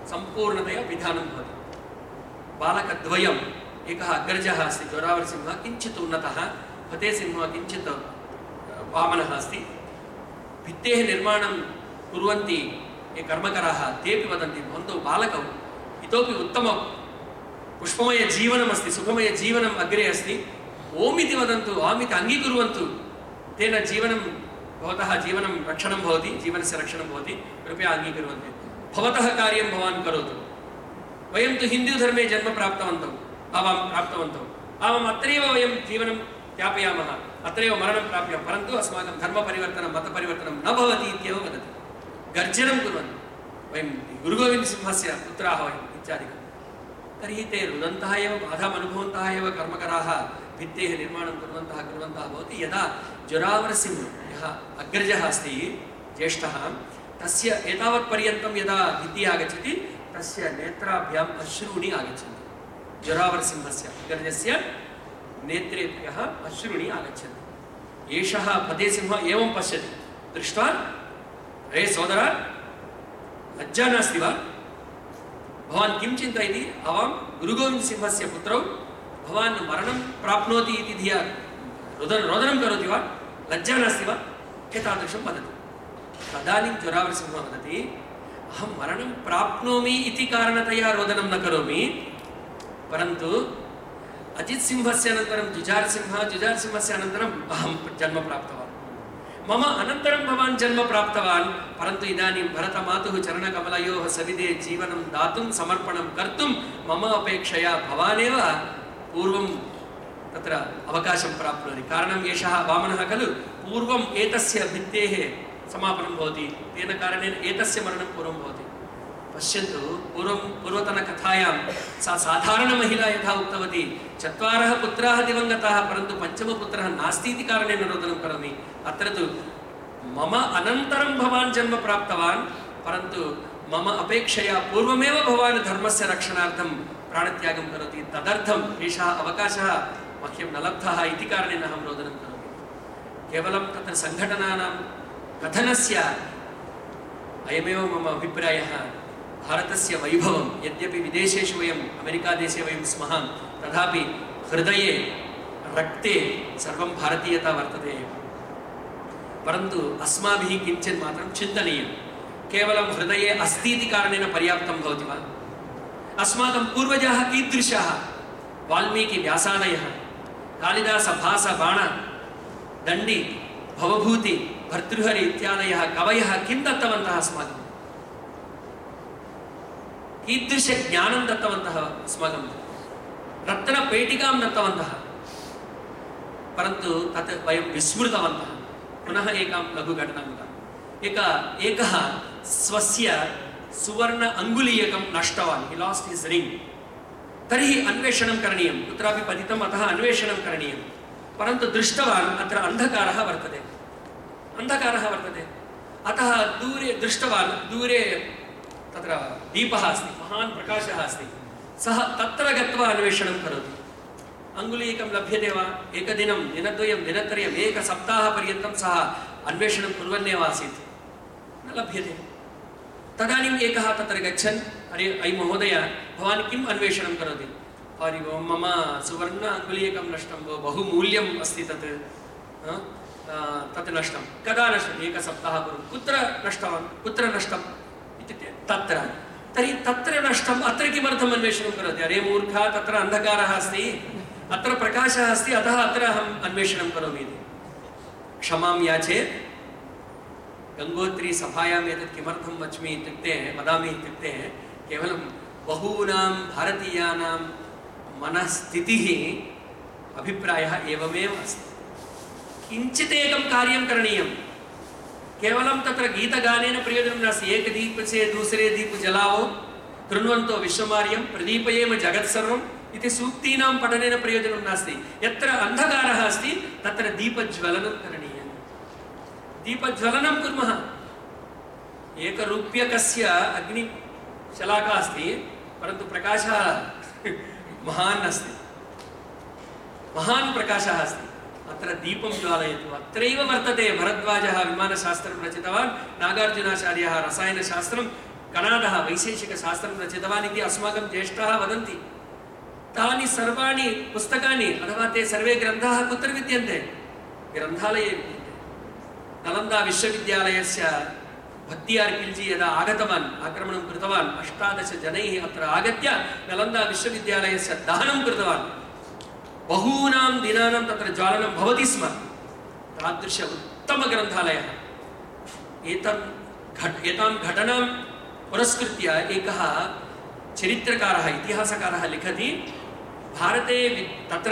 सम्पूर्णतया पिधानं भवति। बालकद्वयम्, एकः अग्रजः अस्ति जोरावरसिंहः, किञ्चित् उन्नतः, फतेसिंहः किञ्चित् वामनः अस्ति। भित्तेः निर्माणं कुर्वन्ति ये कर्मकराः तेपि वदन्ति भवन्तौ बालकौ इतोपि उत्तमं पुष्पमयजीवनमस्ति, सुखमयजीवनम् अग्रे अस्ति, ओम् इति वदन्तु, आम् इति अङ्गीकुर्वन्तु, तेन जीवनं भवतः जीवनं रक्षणं भवति, जीवनस्य रक्षणं भवति, कृपया अङ्गीकुर्वन्तु। भवतः कार्यं भवान् करोतु, वयं तु हिन्दूधर्मे जन्म प्राप्तवन्तौ, आवाम् अत्रैव वयं जीवनं यापयामः, अत्रैव मरणं प्राप्यं, परन्तु अस्माकं धर्मपरिवर्तनं मतपरिवर्तनं न भवति इत्येव वदति। गर्जनं कुर्वन्ति, वयं गुरुगोविन्दसिंहस्य पुत्राः वयम् इत्यादिकं। तर्हि ते रुदन्तः एव, बाधाम् अनुभवन्तः एव कर्मकराः भित्तेः निर्माणं कुर्वन्तः भवति। यदा जोरावरसिंहः यः अग्रजः अस्ति ज्येष्ठः, तस्य एतावत्पर्यन्तं यदा भित्तिः आगच्छति तस्य नेत्राभ्याम् अश्रूणि आगच्छन्ति। जोरावरसिंहस्य अग्रजस्य नेत्रेभ्यः अश्रूणि आगच्छन्ति। एषः फतेसिंहः एवं पश्यति, दृष्ट्वा अरे सोदर, लज्जा नास्ति वा? भवान् किं चिन्तयति? आवां गुरुगोविन्दसिंहस्य पुत्रौ भवान् मरणं प्राप्नोति इति धिया रोदनं करोति वा? लज्जा नास्ति वा? एतादृशं वदति। तदानीं जोरावरसिंहः वदति, अहं मरणं प्राप्नोमि इति कारणतया रोदनं न करोमि, परन्तु अजितसिंहस्य अनन्तरं जुजारसिंहस्य अनन्तरम् अहं जन्म प्राप्तवान्, मम अनन्तरं भवान् जन्म प्राप्तवान्, परन्तु इदानीं भरतमातुः चरणकमलयोः सविधे जीवनं दातुं समर्पणं कर्तुं मम अपेक्षया भवानेव पूर्वं तत्र अवकाशं प्राप्नोति। कारणम् एषः वामनः खलु, पूर्वम् एतस्य भित्तेः समापनं भवति, तेन कारणेन एतस्य मरणं पूर्वं भवति। पश्यन्तु, पूर्वतनकथायां सा साधारणमहिला यथा उक्तवती, 4 पुत्राः दिवङ्गताः परन्तु 5मः पुत्रः नास्ति इति कारणेन रोदनं करोमि। अत्र तु मम अनन्तरं भवान् जन्म प्राप्तवान्, परन्तु मम अपेक्षया पूर्वमेव भवान् धर्मस्य रक्षणार्थं प्राणत्यागं करोति, तदर्थम् एषः अवकाशः मह्यं न लब्धः इति कारणेन अहं रोदनं करोमि। केवलं तत्र सङ्घटनानां कथनस्य अयमेव मम अभिप्रायः। भारतस्य वैभवं यद्यपि विदेशेषु वयम् अमेरिकादेशे वयं स्मः, तथापि हृदये रक्ते सर्वं भारतीयता वर्तते एव। परन्तु अस्माभिः किञ्चित् मात्रं चिन्तनीयं। केवलं हृदये अस्ति इति कारणेन पर्याप्तं भवति वा? अस्माकं पूर्वजाः कीदृशाः? वाल्मीकि व्यासादयः, कालिदास भास बाण दण्डी भवभूति भर्तृहरि इत्यादयः कवयः किं दत्तवन्तः अस्माकं? कीदृशज्ञानं दत्तवन्तः अस्माकं? रत्नपेटिकां दत्तवन्तः, परन्तु तत् वयं विस्मृतवन्तः। पुनः एकां लघुघटनां वदामि। एकः स्वस्य सुवर्ण अङ्गुलीयकं नष्टवान्, हि लास्ट हिस् रिङ्ग्। तर्हि अन्वेषणं करणीयं, कुत्रापि पतितम्, अतः अन्वेषणं करणीयं। परन्तु दृष्टवान् अत्र अन्धकारः वर्तते, अतः दूरे दृष्टवान्, दूरे तत्र दीपः अस्ति, महान् प्रकाशः अस्ति। सः तत्र गत्वा अन्वेषणं करोति। अङ्गुलीयकं लभ्यते वा? एकदिनं, दिनद्वयं, दिनत्रयम्, एकसप्ताहपर्यन्तं सः अन्वेषणं कुर्वन्नेव आसीत्, न लभ्यते। तदानीम् एकः तत्र गच्छन्, अरे अयि महोदय, भवान् किम् अन्वेषणं करोति? अरे मम सुवर्ण अङ्गुलीयकं नष्टं, बहु मूल्यम् अस्ति तत् नष्टं। कदा नष्टम्? एकसप्ताहपूर्वं। कुत्र नष्टम् इत्युक्ते तत्र। तर्हि तत्र नष्टम्, अत्र किमर्थम् अन्वेषणं करोति? अरे मूर्खा, तत्र अन्धकारः अस्ति, अत्र प्रकाशः अस्ति, अतः अत्र अहम् अन्वेषणं करोमि इति। क्षमां याचे, गङ्गोत्री सभायाम् एतत् किमर्थं वदामि इत्युक्ते केवलं बहूनां भारतीयानां मनस्थितिः, अभिप्रायः एवमेव अस्ति। किञ्चित् एकं कार्यं करणीयं। केवलं तत्र गीतगानेन प्रयोजनं नास्ति। एक दीप से दूसरे दीप जलावो, कृण्वन्तो विश्वमार्यं, प्रदीपयेम जगत्सर्वं, इति सूक्तीनां पठनेन प्रयोजनं नास्ति। यत्र अन्धकारः अस्ति तत्र दीपज्वलनं करणीयं। दीपज्वलनं कुर्मः। एकरूप्यकस्य अग्निशलाका अस्ति, परन्तु प्रकाशः महान् अस्ति, महान् प्रकाशः अस्ति। अत्र दीपं ज्वालयतु। अत्रैव वर्तते। भरद्वाजः विमानशास्त्रं रचितवान्, नागार्जुनाचार्यः रसायनशास्त्रं, कणादः वैशेषिकशास्त्रं रचितवान् इति अस्माकं ज्येष्ठाः वदन्ति। तानि सर्वाणि पुस्तकानि अथवा ते सर्वे ग्रन्थाः कुत्र विद्यन्ते? ग्रन्थालये विद्यन्ते। नालन्दा विश्वविद्यालयस्य भक्तियार् खिल्जी यदा आगतवान्, आक्रमणं कृतवान्, 18 जनैः अत्र आगत्य नालन्दा विश्वविद्यालयस्य दहनं कृतवान्। बहूनां दिनानां तत्र ज्वालनं भवति स्म। तादृश उत्तमग्रन्थालयः। एतां घटनां पुरस्कृत्य एकः चरित्रकारः, इतिहासकारः लिखति, भारते तत्र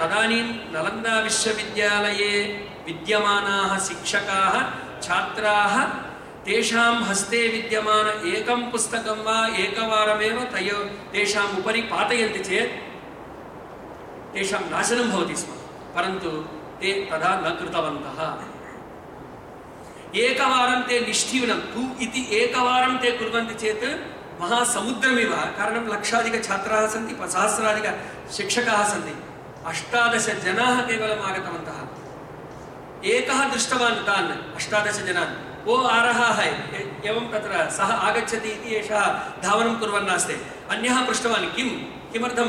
तदानीं नालन्दा विश्वविद्यालये विद्यमानाः शिक्षकाः छात्राः तेषां हस्ते विद्यमान एकं पुस्तकं वा एकवारमेव तेषाम् उपरि पातयन्ति चेत् तेषां नाशनं भवति स्म। परन्तु ते तथा न कृतवन्तः। एकवारं ते निष्ठीवनं तु इति एकवारं ते कुर्वन्ति चेत् महासमुद्रमिव। कारणं लक्षाधिकछात्राः सन्ति, सहस्राधिकशिक्षकाः सन्ति, 18 जनाः केवलम् आगतवन्तः। एकः दृष्टवान् तान् 18 जनान्, वो आ रहा है एवं तत्र सः आगच्छति इति एषः धावनं कुर्वन्नास्ति। अन्यः पृष्टवान् किमर्थं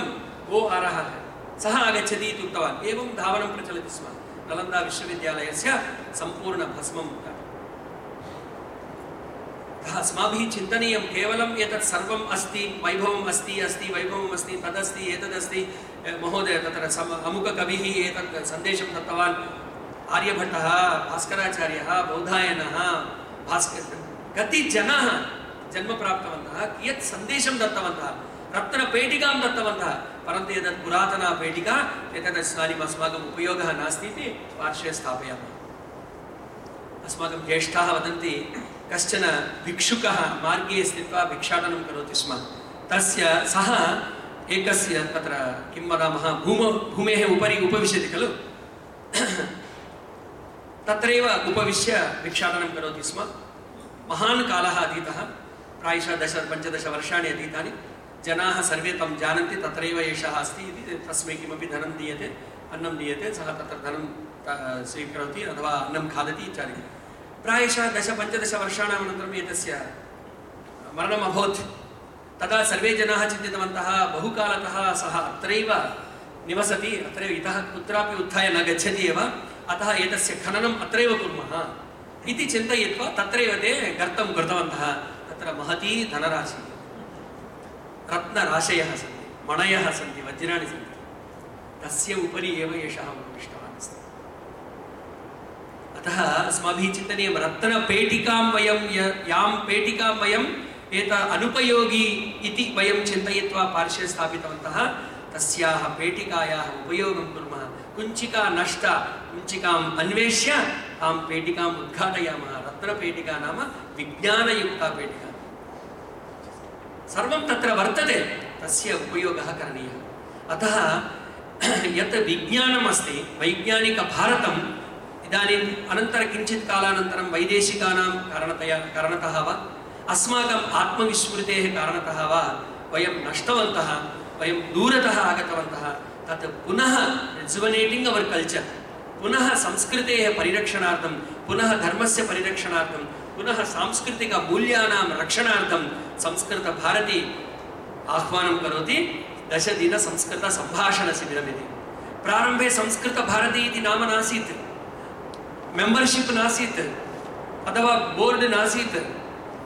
वो आ रहा है, सः आगच्छति इति उक्तवान्। एवं धावनं प्रचलति स्म। नालन्दा विश्वविद्यालयस्य सम्पूर्णभस्मं। अस्माभिः चिन्तनीयं, केवलं एतत् सर्वम् अस्ति, वैभवम् अस्ति वैभवम् अस्ति, तदस्ति एतदस्ति। महोदय तत्र अमुककविः एतत् सन्देशं दत्तवान्, आर्यभट्टः, भास्कराचार्यः, बौधायनः, कति जनाः जन्म प्राप्तवन्तः, कियत् सन्देशं दत्तवन्तः, रत्नपेटिकां दत्तवन्तः। परन्तु एतत् पुरातना पेटिका, एतत् इदानीम् अस्माकम् उपयोगः नास्ति इति पार्श्वे स्थापयामः। अस्माकं ज्येष्ठाः वदन्ति, कश्चन भिक्षुकः मार्गे स्थित्वा भिक्षाटनं करोति स्म। सः एकस्य तत्र किं वदामः, भूमेः उपरि उपविशति खलु, तत्रैव उपविश्य भिक्षाटनं करोति स्म। महान् कालः अतीतः, प्रायशः 10-15 वर्षाणि अतीतानि। जनाः सर्वे तं जानन्ति, तत्रैव एषः अस्ति इति। तस्मै किमपि धनं दीयते, अन्नं दीयते, सः तत्र धनं स्वीकरोति अथवा अन्नं खादति इत्यादि। प्रायशः 10-15 वर्षाणाम् अनन्तरम् एतस्य मरणम् अभवत्। तदा सर्वे जनाः चिन्तितवन्तः, बहुकालतः सः अत्रैव निवसति, अत्रैव इतः कुत्रापि उत्थाय न गच्छति एव, अतः एतस्य खननम् अत्रैव कुर्मः इति चिन्तयित्वा तत्रैव ते गर्तं कृतवन्तः। तत्र महती धनराशि, रत्नराशयः सन्ति, मणयः सन्ति, वज्राणि सन्ति। तस्य उपरि एव एषः उपविष्टवान् अस्ति। अतः अस्माभिः चिन्तनीयं, रत्नपेटिकां यां पेटिकां वयम् अनुपयोगी इति वयं चिन्तयित्वा पार्श्वे स्थापितवन्तः, तस्याः पेटिकायाः उपयोगं कुर्मः। कुञ्चिका नष्टा, कुञ्चिकाम् अन्वेष्य तां पेटिकाम् उद्घाटयामः। रत्नपेटिका नाम विज्ञानयुक्ता पेटिका। सर्वं तत्र वर्तते, तस्य उपयोगः करणीयः। अतः यत् विज्ञानम् अस्ति, वैज्ञानिकभारतम् इदानीम् अनन्तरं किञ्चित् कालानन्तरं वैदेशिकानां कारणतः वा अस्माकम् आत्मविस्मृतेः कारणतः वा वयं नष्टवन्तः, वयं दूरतः आगतवन्तः। तत् पुनः रिजुवनेटिङ्ग् अवर् कल्चर्, पुनः संस्कृतेः परिरक्षणार्थं, पुनः धर्मस्य परिरक्षणार्थं, पुनः सांस्कृतिकमूल्यानां रक्षणार्थं संस्कृतभारती आह्वानं करोति 10 दिन संस्कृतसम्भाषणशिबिरमिति। प्रारम्भे संस्कृतभारती इति नाम नासीत्, मेम्बर्शिप् नासीत्, अथवा बोर्ड् नासीत्,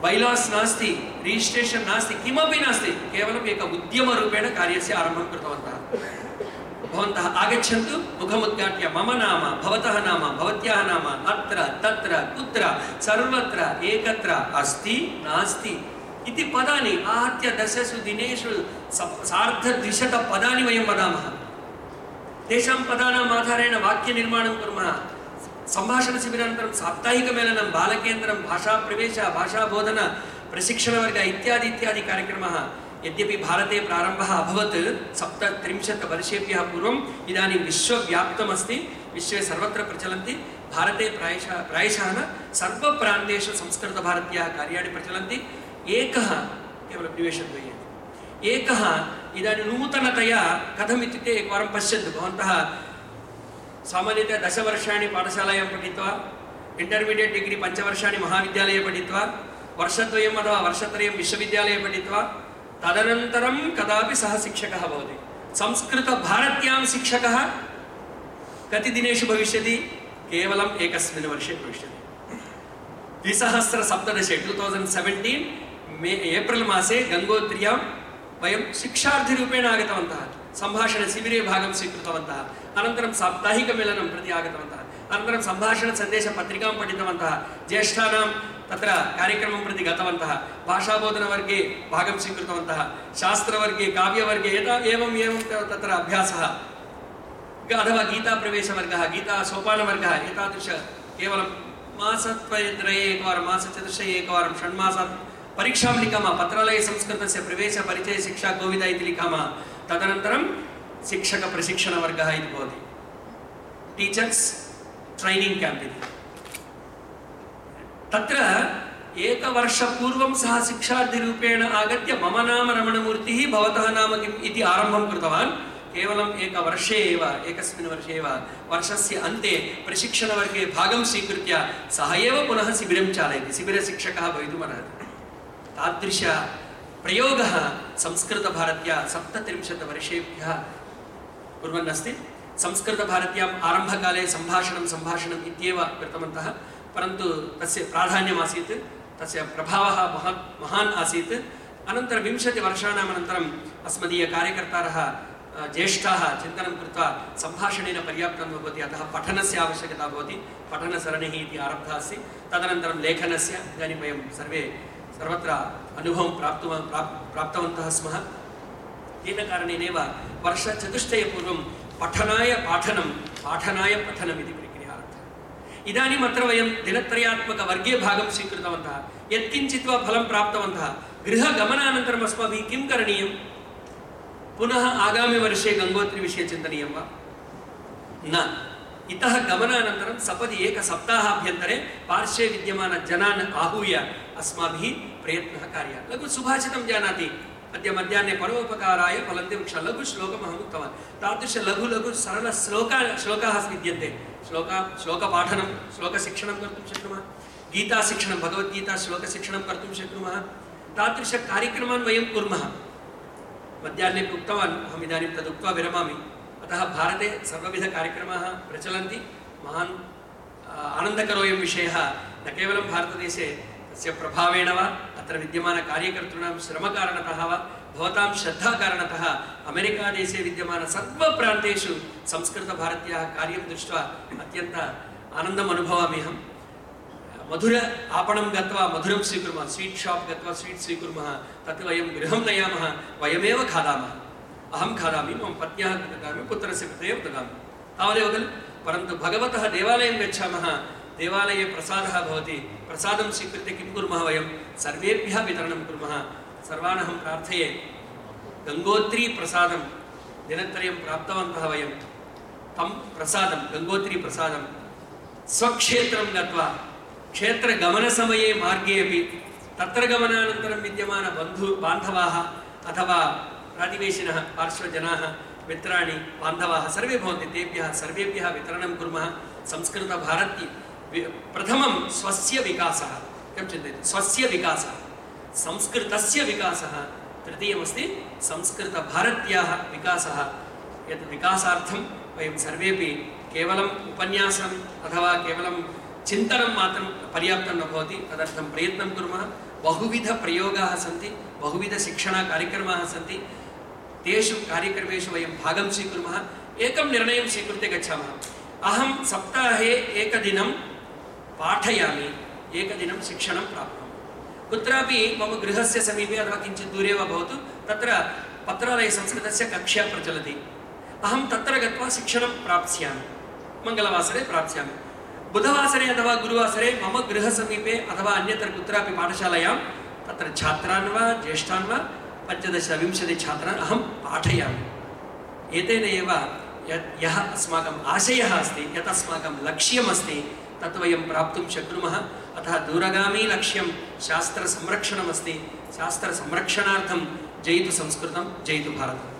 बैलास् नास्ति, रिजिस्ट्रेशन् नास्ति, किमपि नास्ति। केवलम् एक उद्यमरूपेण कार्यस्य आरम्भं कृतवन्तः। भवन्तः आगच्छन्तु, मुखमुद्घाट्य मम नाम, भवतः नाम, भवत्याः नाम, अत्र तत्र कुत्र सर्वत्र एकत्र अस्ति नास्ति इति पदानि आहत्य 10 दिनेषु 250 पदानि वयं वदामः। तेषां पदानाम् आधारेण वाक्यनिर्माणं कुर्मः। सम्भाषणशिबिरानन्तरं साप्ताहिकमेलनं, बालकेन्द्रं, भाषाप्रवेश, भाषाबोधन, प्रशिक्षणवर्ग इत्यादि इत्यादि कार्यक्रमः। यद्यपि भारते प्रारम्भः अभवत् 37 वर्षेभ्यः पूर्वम् इदानीं विश्वव्याप्तमस्ति, विश्वे सर्वत्र प्रचलन्ति। भारते प्रायशः न सर्वप्रान्तेषु संस्कृतभारत्याः कार्याणि प्रचलन्ति। एकः केवलं निमेषद्वये एकः इदानीं नूतनतया कथम् इत्युक्ते एकवारं पश्यन्तु भवन्तः सामान्यतया 10 वर्षाणि पाठशालायां पठित्वा इंटर्मीडियेट् डिग्री 5 वर्षाणि महाविद्यालये पठित्वा वर्षद्वयम् अथवा वर्षत्रयं विश्वविद्यालये पठित्वा तदनन्तरं कदापि सः शिक्षकः भवति। संस्कृतभारत्यां शिक्षकः कति दिनेषु भविष्यति? केवलम् एकस्मिन् वर्षे भविष्यति। 2017 एप्रिल् मासे गङ्गोत्र्यां वयं शिक्षार्थिरूपेण आगतवन्तः। सम्भाषणशिबिरे भागं स्वीकृतवन्तः। अनन्तरं साप्ताहिकमेलनं प्रति आगतवन्तः। अनन्तरं सम्भाषणसन्देशपत्रिकां पठितवन्तः। ज्येष्ठानां तत्र कार्यक्रमं प्रति गतवन्तः। भाषाबोधनवर्गे भागं स्वीकृतवन्तः। शास्त्रवर्गे, काव्यवर्गे एवं तत्र अभ्यासः अथवा गीताप्रवेशवर्गः, गीतासोपानवर्गः, एतादृश केवलं मासत्रये एकवारं, मासचतुष्टये एकवारं, षण्मासात् परीक्षां लिखामः। पत्रालये संस्कृतस्य प्रवेशपरिचयशिक्षा कोविदा इति लिखामः। तदनन्तरं शिक्षकप्रशिक्षणवर्गः इति भवति, टीचर्स् ट्रैनिङ्ग् क्याम्प् इति। तत्र एकवर्षपूर्वं सः शिक्षार्थिरूपेण आगत्य मम नाम रमणमूर्तिः, भवतः नाम किम् इति आरम्भं कृतवान्। केवलम् एकवर्षे एव, एकस्मिन् वर्षे एव, वर्षस्य अन्ते प्रशिक्षणवर्गे भागं स्वीकृत्य सः एव पुनः शिबिरं चालयति, शिबिरशिक्षकः भवितुमर्हति। तादृश प्रयोगः संस्कृतभारत्या 37 वर्षेभ्यः कुर्वन् अस्ति। संस्कृतभारत्याम् आरम्भकाले सम्भाषणम् इत्येव कृतवन्तः, परन्तु तस्य प्राधान्यमासीत्, तस्य प्रभावः महान् आसीत्। अनन्तरं 20 वर्षाणाम् अनन्तरम् अस्मदीयकार्यकर्तारः ज्येष्ठाः चिन्तनं कृत्वा सम्भाषणेन पर्याप्तं न भवति, अतः पठनस्य आवश्यकता भवति, पठनसरणिः इति आरब्धा अस्ति। तदनन्तरं लेखनस्य, इदानीं वयं सर्वत्र अनुभवं प्राप्तवन्तः स्मः। तेन कारणेनैव वर्षचतुष्टयपूर्वं पठनाय पठनम् इति प्रक्रिया आरब्धा। इदानीम् अत्र वयं दिनत्रयात्मकवर्गे भागं स्वीकृतवन्तः, यत्किञ्चित् वा फलं प्राप्तवन्तः। गृहगमनानन्तरम् अस्माभिः किं करणीयं? पुनः आगामिवर्षे गङ्गोत्रीविषये चिन्तनीयं वा? न। इतः गमनानन्तरं सपदि एकसप्ताहाभ्यन्तरे पार्श्वे विद्यमानजनान् आहूय अस्माभिः प्रयत्नः कार्यः। लघु सुभाषितं जानाति, अद्य मध्याह्ने परोपकाराय फलन्ति वृक्षाः, लघु श्लोकम् अहम् उक्तवान्। तादृश लघु सरलश्लोकाः विद्यन्ते। श्लोकपाठनं, श्लोकशिक्षणं कर्तुं शक्नुमः, गीताशिक्षणं, भगवद्गीता श्लोकशिक्षणं कर्तुं शक्नुमः। तादृशकार्यक्रमान् वयं कुर्मः। मध्याह्ने उक्तवान्, अहम् इदानीं तदुक्त्वा विरमामि। अतः भारते सर्वविधकार्यक्रमाः प्रचलन्ति। महान् आनन्दकरोऽयं विषयः न केवलं भारतदेशे तस्य प्रभावेण वा, अत्र विद्यमानकार्यकर्तॄणां श्रमकारणतः वा, भवतां श्रद्धाकारणतः अमेरिकादेशे विद्यमान सर्वप्रान्तेषु संस्कृतभारत्याः कार्यं दृष्ट्वा अत्यन्त आनन्दम् अनुभवामि अहं। मधुर आपणं गत्वा मधुरं स्वीकुर्मः, स्वीट् शाप् गत्वा स्वीट् स्वीकुर्मः, तत् वयं गृहं नयामः, वयमेव खादामः। अहं खादामि, मम पत्न्याः ददामि, पुत्रस्य कृते एव ददामि, तावदेव खलु। परन्तु भगवतः देवालयं गच्छामः, देवालये प्रसादः भवति, प्रसादं स्वीकृत्य किं कुर्मः? वयं सर्वेभ्यः वितरणं कुर्मः। सर्वान् अहं प्रार्थये, गङ्गोत्रीप्रसादं दिनत्रयं प्राप्तवन्तः वयं, तं प्रसादं, गङ्गोत्रीप्रसादं स्वक्षेत्रं गत्वा क्षेत्रगमनसमये मार्गे अपि तत्र गमनानन्तरं विद्यमान बान्धवाः अथवा प्रातिवेशिनः, पार्श्वजनाः, मित्राणि, बान्धवाः सर्वे भवन्ति, तेभ्यः सर्वेभ्यः वितरणं कुर्मः। संस्कृतभारती प्रथमं स्वस्य विकासः, किं चिन्तयति? स्वस्य विकासः, संस्कृतस्य विकासः। तृतीयमस्ति संस्कृतभारत्याः विकासः। यत् विकासार्थं वयं सर्वेपि केवलम् उपन्यासम् अथवा केवलं चिन्तनं मात्रं पर्याप्तं न भवति, तदर्थं प्रयत्नं कुर्मः। बहुविधप्रयोगाः सन्ति, बहुविधशिक्षणकार्यक्रमाः सन्ति, तेषु कार्यक्रमेषु वयं भागं स्वीकुर्मः। एकं निर्णयं स्वीकृत्य गच्छामः, अहं सप्ताहे एकदिनं पाठयामि, एकदिनं शिक्षणं प्राप्नोमि। कुत्रापि मम गृहस्य समीपे अथवा किञ्चित् दूरे वा भवतु, तत्र पत्रालयसंस्कृतस्य कक्षा प्रचलति, अहं तत्र गत्वा शिक्षणं प्राप्स्यामि, मङ्गलवासरे प्राप्स्यामि। बुधवासरे अथवा गुरुवासरे मम गृहसमीपे अथवा अन्यत्र कुत्रापि पाठशालायां तत्र छात्रान् वा ज्येष्ठान् वा 15-20 छात्रान् अहं पाठयामि। एतेन एव यः अस्माकम् आशयः अस्ति, यत् अस्माकं लक्ष्यमस्ति तत् वयं प्राप्तुं शक्नुमः। अतः दूरगामी लक्ष्यं शास्त्रसंरक्षणमस्ति। शास्त्रसंरक्षणार्थं जयतु संस्कृतं, जयतु भारतम्।